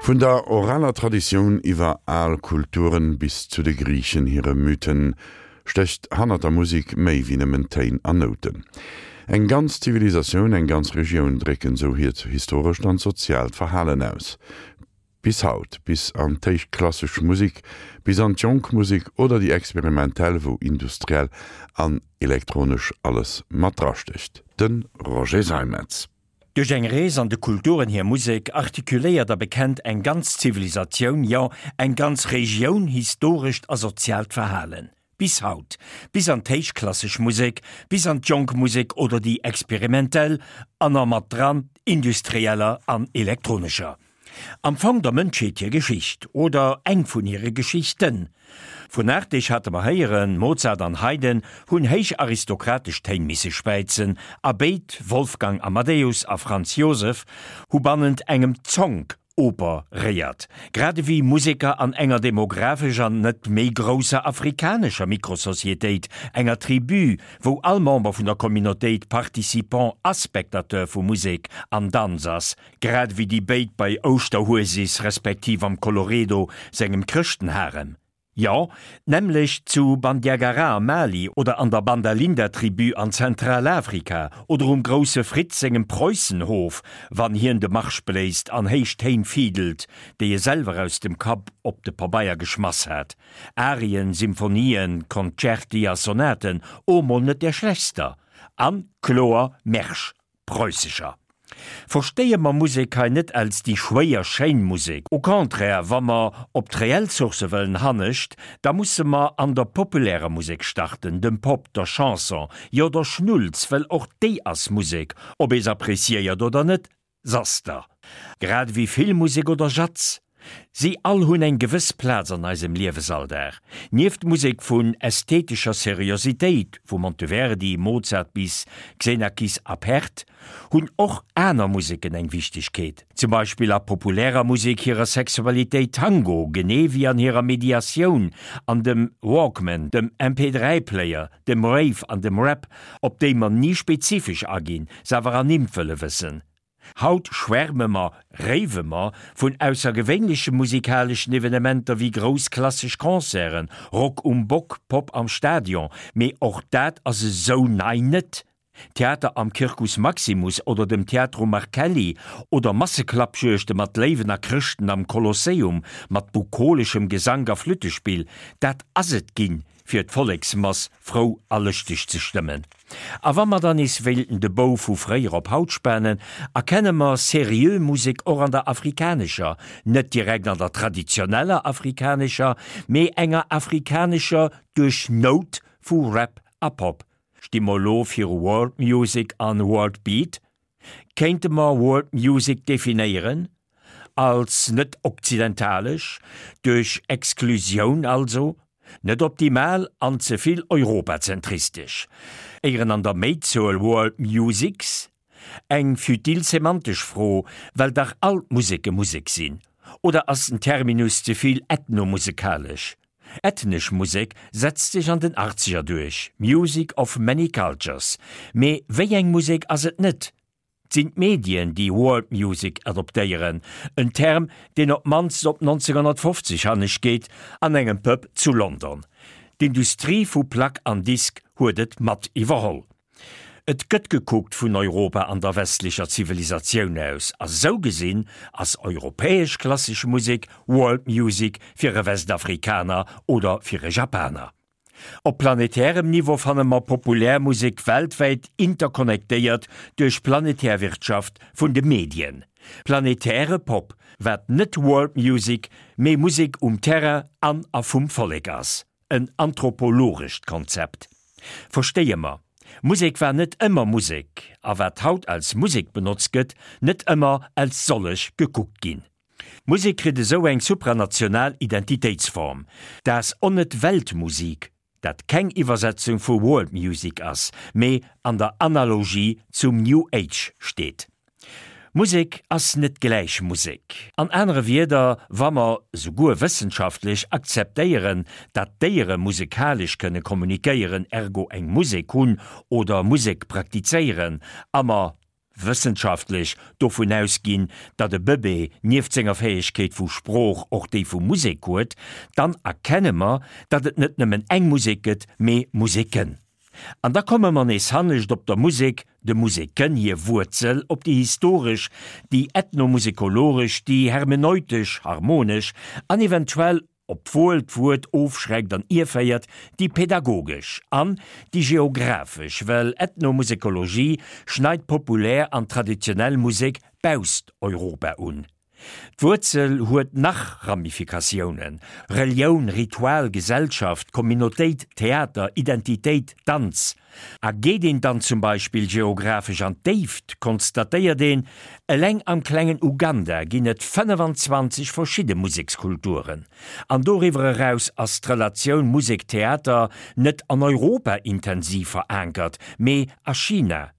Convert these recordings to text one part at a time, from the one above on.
Vun der oraler Traditioun iwwer al Kulturen bis zu de Griichen hire Mythen stécht hannert der Musek méi wéi nëmmen Téin an Nouten. Eng ganz Zivilisatioun, eng ganz Regioun drécken esou hiert historescht an soziaalt Verhalen aus. Bis haut, bis an d'héichklassesch Musek, bis an d'jonk Musek oder déi experimentell, wou industriell an elektronesch alles mat drastécht. De Roger Seimetz. Duerch eng Rees an de Kulturen hir Musek artikuléiert a bekennt eng ganz Zivilisatioun, jo eng ganz Regioun historescht a soziaalt Verhalen. Bis haut. Bis an d'héichklassesch Musek, bis an d'jonk Musek oder déi experimentell, an a mat dran d'industrieller an elektronescher. Am Fong der Mënschheet hir Geschicht, oder eng vun hire Geschichten. Vun Artig hate mer héieren, Mozart an Haydn hunn héich aristokratesch Téin misse späizen, a béid, Wolfgang Amadeus a Franz Joseph, hu bannent engem Zonk operéiert, grad ewéi Museker an enger demographesch an net méi grousser afrikanescher Mikrosocietéit, enger Tribu, wou all Member vun der Communautéit Participant a Spectateur vu Musek an Danz ass, Grad ewéi déi béid bei Ouschterhuesis respektiv am Colloredo sengem Chrëschtenharem. Jo, d'nämmlecht zu Bandiagara am Mali oder an der Bandalinda-Tribu an Zentralafrika oder um Grousse Fritz sengem Preussenhof, wann hien de Marsch bléist an héich Téin fiddelt, déi e selwer aus dem Kapp op de Pabeier geschmass hat. Arien, Symphonien, Concerti a Sonaten, o mol net där schlechtster an kloer Märsch. Preussescher. Verstéie mer Musek hei net als déi schwéier schéin Musek, au contraire, wa mer op d'reell Sourcë wëllen hannescht, da musse mer an der populärer Musek starten, dem Pop, der Chanson, jo der Schnulz, well och déi ass Musek, ob ee s'appréciéiert oder net, s'ass der. Grad ewéi Filmmusek oder Jazz. Si all hunn eng gewëss Plaz an eisem Liewesalldag. Nieft Musek vun ästhetescher Seriositéit, vu Monteverdi, Mozart bis Xenakis a Pärt, hunn och aner Museken eng Wichtegkeet. Zum Beispill a populärer Musek hirer Sexualitéit, Tango, genee wéi an hirer Mediatioun, an dem Walkman, dem MP3-Player, dem Rave an dem Rap, op déi mer ni spezifesch aginn, se awer ernimmt wëlle wëssen. Haut schwärme mer, rave mer, vun aussergewéinleche musikaleschen Evenementer wéi grouss klassesch Concerten, Rock um Bock, Pop am Stadion, mee och dat ass esou nei net. Theater am Circus Maximus oder dem Teatro Marcelli oder Masseklappjuegte mat Léiwen a Chrëschten am Kolosseum mat bukoleschem Gesank a Flüttespill, dat ass et ginn, fir d'Volleksmass frou a lëschteg ze stëmmen. A wa mer dann nees wéilten de Bou vu fréier op haut spanen, erkenne mer seriö Musek och an der afrikanescher, net direkt an der traditioneller afrikanescher, mee enger afrikanescher duerch Nout vu Rap a Pop. Sti mer elo viru World Music an World Beat? Kéinte mer World Music definéieren als net okzidentalesch, duerch Exklusioun also, net optimal an ze vill europazentristesch, éieren an der Méizuel World Musics? Eng futil semantesch Fro, well dach all d'Museke Musek sinn. Oder ass den Terminus ze vill ethnomusekalesch? Ethnesch Musek setzt sech an den Achtzeger duerch, Music of many cultures. Mee wéi eng Musek ass et net? 't sinn d'Medien, déi World Music adoptéieren, en Term, deen op d'mannst op 1950 hannescht geet, an engem Pub zu London. D'Industrie vu Plack an Disk huet et mat iwwerholl. Et gëtt gekuckt vun Europa an der westlecher Zivilisatioun aus, a sou gesinn ass europäesch klassesch Musek World Music fir e Westafrikaner oder fir e Japaner. Op planetärem Niveau fanne mer populär Musek weltwäit interconnectéiert duerch planetär Wirtschaft vun de Medien. Planetäre Pop, wat net World Music, mee Musek um Terrain an a vum Vollek ass. En anthropologescht Konzept. Verstéie mer, Musek war net ëmmer Musek, a wat haut als Musek benotzt gëtt, net ëmmer als sollech gekuckt ginn. Musek kritt esou eng supranational Identitéitsform, dat onnet Weltmusik, dat keng Iwwersetzung vu World Music ass, mee an der Analogie zum New Age steet. Musek ass net gläich Musek. An anere Wierder, wa mer, souguer wëssenschaftlech, akzeptéieren, dat Déiere musekalesch kënne kommunikéieren, ergo eng Musek hunn oder Musek praktizéieren, a mer. Wëssenschaftlech, dovun ausginn, datt e Bëbee nieft senger Fäegkeet vu Sprooch och déi vu Musek huet, dann erkenne mer, datt et net nëmmen eng Musek gëtt, mee Museken. An da komme mer nees hannescht op der Musek, de Museken hir Wuerzel, op déi historesch, déi ethnomusekologesch, déi hermeneutesch, harmonesch an eventuell, obwuel d'Wuert ofschreckt an ierféiert, déi pedagogesch an déi geographesch, well Ethnomusekologie schneit populär an traditionell Musek bausst Europa un. D'Wuerzel huet nach Ramifikatiounen, Relioun, Ritual, Gesellschaft, Communautéit, Theater, Identitéit, Danz. A geet een dann zum Beispill geographesch an d'Déift, konstatéiert een, eleng am klengen Uganda ginn et 25 verschidde Musekskulturen. An doriwwer eraus ass d'Relatioun Musek-Theater net an Europa intensiv verankert, mee a China.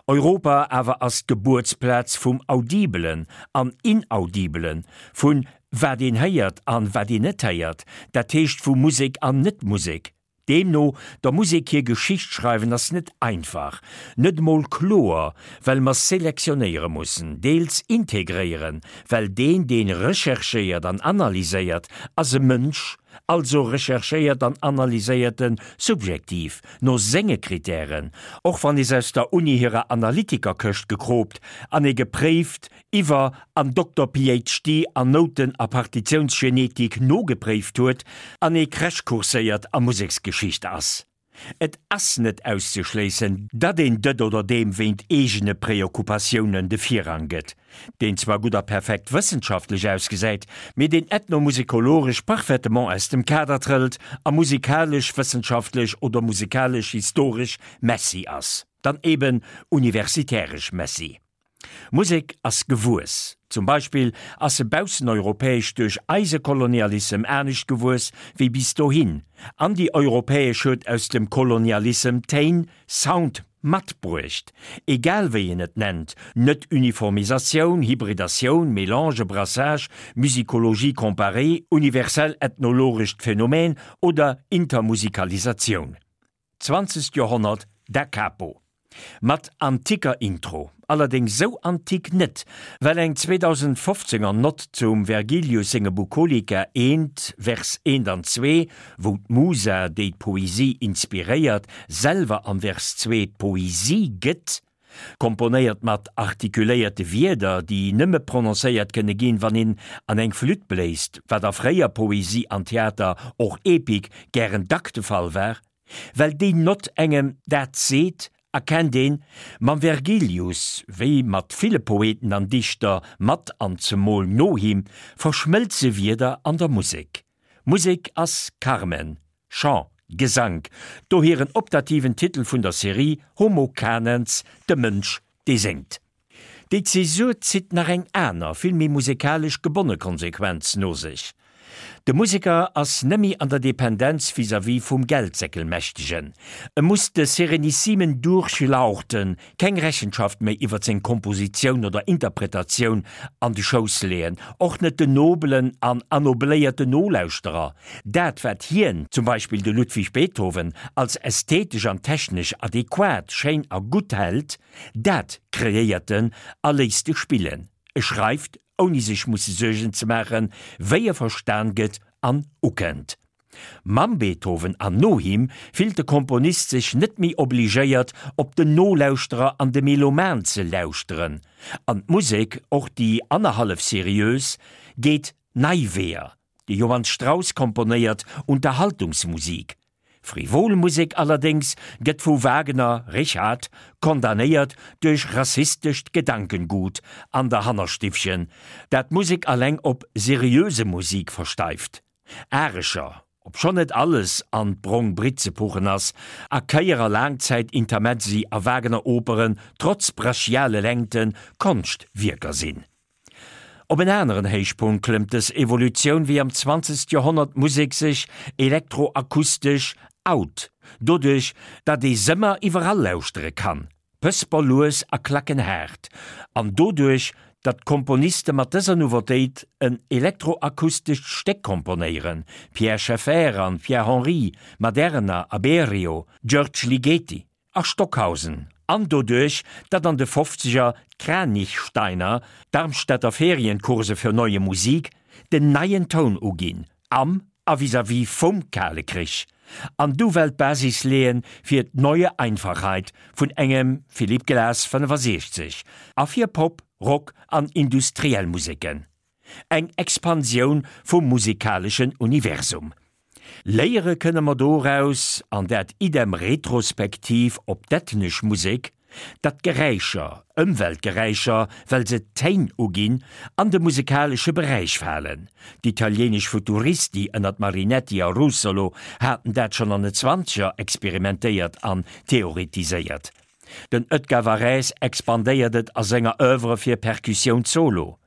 Europa awer ass d'Gebuertsplaz vum Audibelen an Inaudibelen, vun wat een héiert an wat een net héiert, dat heescht vu Musek an Net-Musek. Deemno, der Musek hir Geschicht schreiwen ass net einfach, net emol kloer, well mer selektionéiere mussen, deels integréieren, well deen, deen recherchéiert an analyséiert, ass e Mënsch, also recherchéiert an analyséiert en subjektiv, no senge Kritären, och wann ee se aus der Uni hirer Analytikerkëscht gekroopt an ee gepréift iwwer an Dokter PhD an Nouten a Partitiounsgenetik nogepréift huet an ee crashcourséiert a Museksgeschicht ass. Et ass net auszeschléissen, datt een dët oder deem wéint eegene Preoccupatiounen de Virrang gëtt, deen zwar gutt a perfekt wëssenschaftlech ausgesäit, mee deen ethnomusikologesch parfaitement aus dem Kader trëllt a musikalesch-wëssenschaftlech oder musikalesch-historesch Messi ass. Dann eben universitäresch Messi. Musek ass gewuess. Zum Beispill ass se bausseneuropäesch duerch eise Kolonialissem anescht gewuess wéi bis dohin, an déi europäesch huet aus dem Kolonialissem Téin, Sound, matbruecht. Egal wéi een et nennt, Net-Uniformisatioun, Hybridatioun, Mélange, Brassage, Musicologie comparée, universell ethnologescht Phänomen oder Intermusikalisatioun. Zwanzegt Joerhonnert, Da Capo. Mat antiker Intro. Allerdéngs sou antik net, well eng 2015 er Nott zum Vergilius senge Bucolica I, Vers 1 an 2, wou d'Musa, déi d'Poesie inspiréiert, selwer am Vers 2 d'Poesie gëtt, komponéiert mat artikuléierte Wierder, déi nëmme prononcéiert kënne ginn, wann een an eng Flütt bléist, wat a fréier Poesie an Theater, och Epik, gären dack de Fall war. Well déi Nott engem dat seet, erkennt een, mam Vergilius, wéi mat ville Poeten an Dichter mat an zemol no him, verschmëlze Wierder an der Musek. Musek ass Carmen, Chant, Gesank, dohier en optativen Titel vun der Serie Homo Canens, de Mënsch, dee séngt. Déi Zäsur zitt nach eng aner, vill méi musekalesch gebonne Konsequenz no sech, De Museker ass nëmmi an der Dependenz vis-à-vis vum Geldsäckelmächtegen. E muss de serenissimen Durchlauchten keng Rechenschaft méi iwwer seng Kompositioun oder Interpretatioun an de Schouss leeën, och net den nobelen an annobléierten Nolauschterer. Dat wat hien, zum Beispill de Ludwig Beethoven, als ästhetesch an technesch adequat, schéin a gutt hält, Dat kreéiert en a léisst e spillen. E schreift, ouni sech musse Suergen ze maachen, wéi e verstan gëtt an ukënnt. Mam Beethoven an no him fillt de Komponist sech net méi obligéiert, op den Nolauschterer an de Meloman ze lauschteren. An d'Musek, och déi annerhallef seriös, geet nei Weeër. De Johann Strauss komponéiert Unterhaltungsmusik. Frivol Musek allerdéngs gëtt vu Wagner, Richard, condamnéiert duerch rassistescht Gedankengut an der Hannerstiffchen, dat d'Musek alleng op seriöse Musik versteift. Arescher, obschonn net alles an d'brong Britt ze puchen ass, a Kéier a Laangzäit-Intermezzi a Wagner-Operen trotz brachiale Längten Konschtwierker sinn. Op en aneren Héichpunkt klëmmt dës Evolutioun, wéi am 20. Joerhonnert d'Musek sech elektroakustesch out, doduerch datt ee s'ëmmer iwwerall lauschtere kann, pësper lues a klackenhaart, an doduerch datt d'Komponiste mat dëser Nouveautéit en elektroakustescht Stéck komponéieren, Pierre Schaeffer an Pierre Henry, Maderna a Berio, György Ligeti a Stockhausen. An doduerch, datt an de Fofzeger d'Kranichsteiner, d'Darmstädter Ferienkurse für Neue Musik, den neien Toun uginn, am a vis-à-vis vum Kale Krich, an du well d'Basis leeën fir d'Neue Einfachheit vun engem Philip Glass 65 a fir Pop, Rock an industriell Museken. Eng Expansioun vum musikaleschen Universum. Léiere kënne mer doraus, an dat idem retrospektiv op d'ethnesch Musek, datt Geräischer, Ëmweltgeräischer, well se d'Téin uginn, an de musekalesche Beräich falen. D'italieenesch Futuristi ënnert Marinetti a Russolo haten dat schonn an de Zwanzeger experimentéiert an theoretiséiert. Den Edgar Varèse expandéiert et a senger Oeuvre fir Percussioun solo.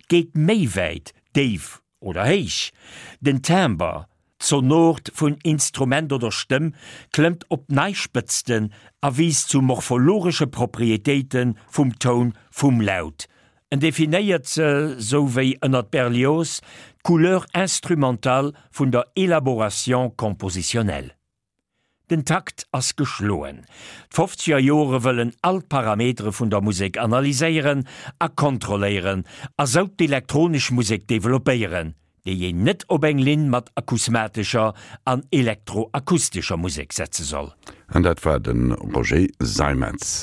Geet méi wäit, déif oder héich. Den Timbre, d'Sonort vun Instrument oder Stëmm, klëmmt op nei Spëtzten a wiisst zu morphologesche Proprietéite vum Toun vum Laut. En definéiert se, sou wéi ënnert Berlioz, d'Couleur instrumentale vun der Élaboration compositionnelle. Den Takt ass geschloen. D'Fofzeger Jore wëllen all d'Parametere vun der Musek analyséieren a kontrolléieren a sou d'elektronesch Musek developpéieren, déi een net op eng Linn mat akusmatescher an elektroakustescher Musek setze soll. An dat war de Roger Seimetz.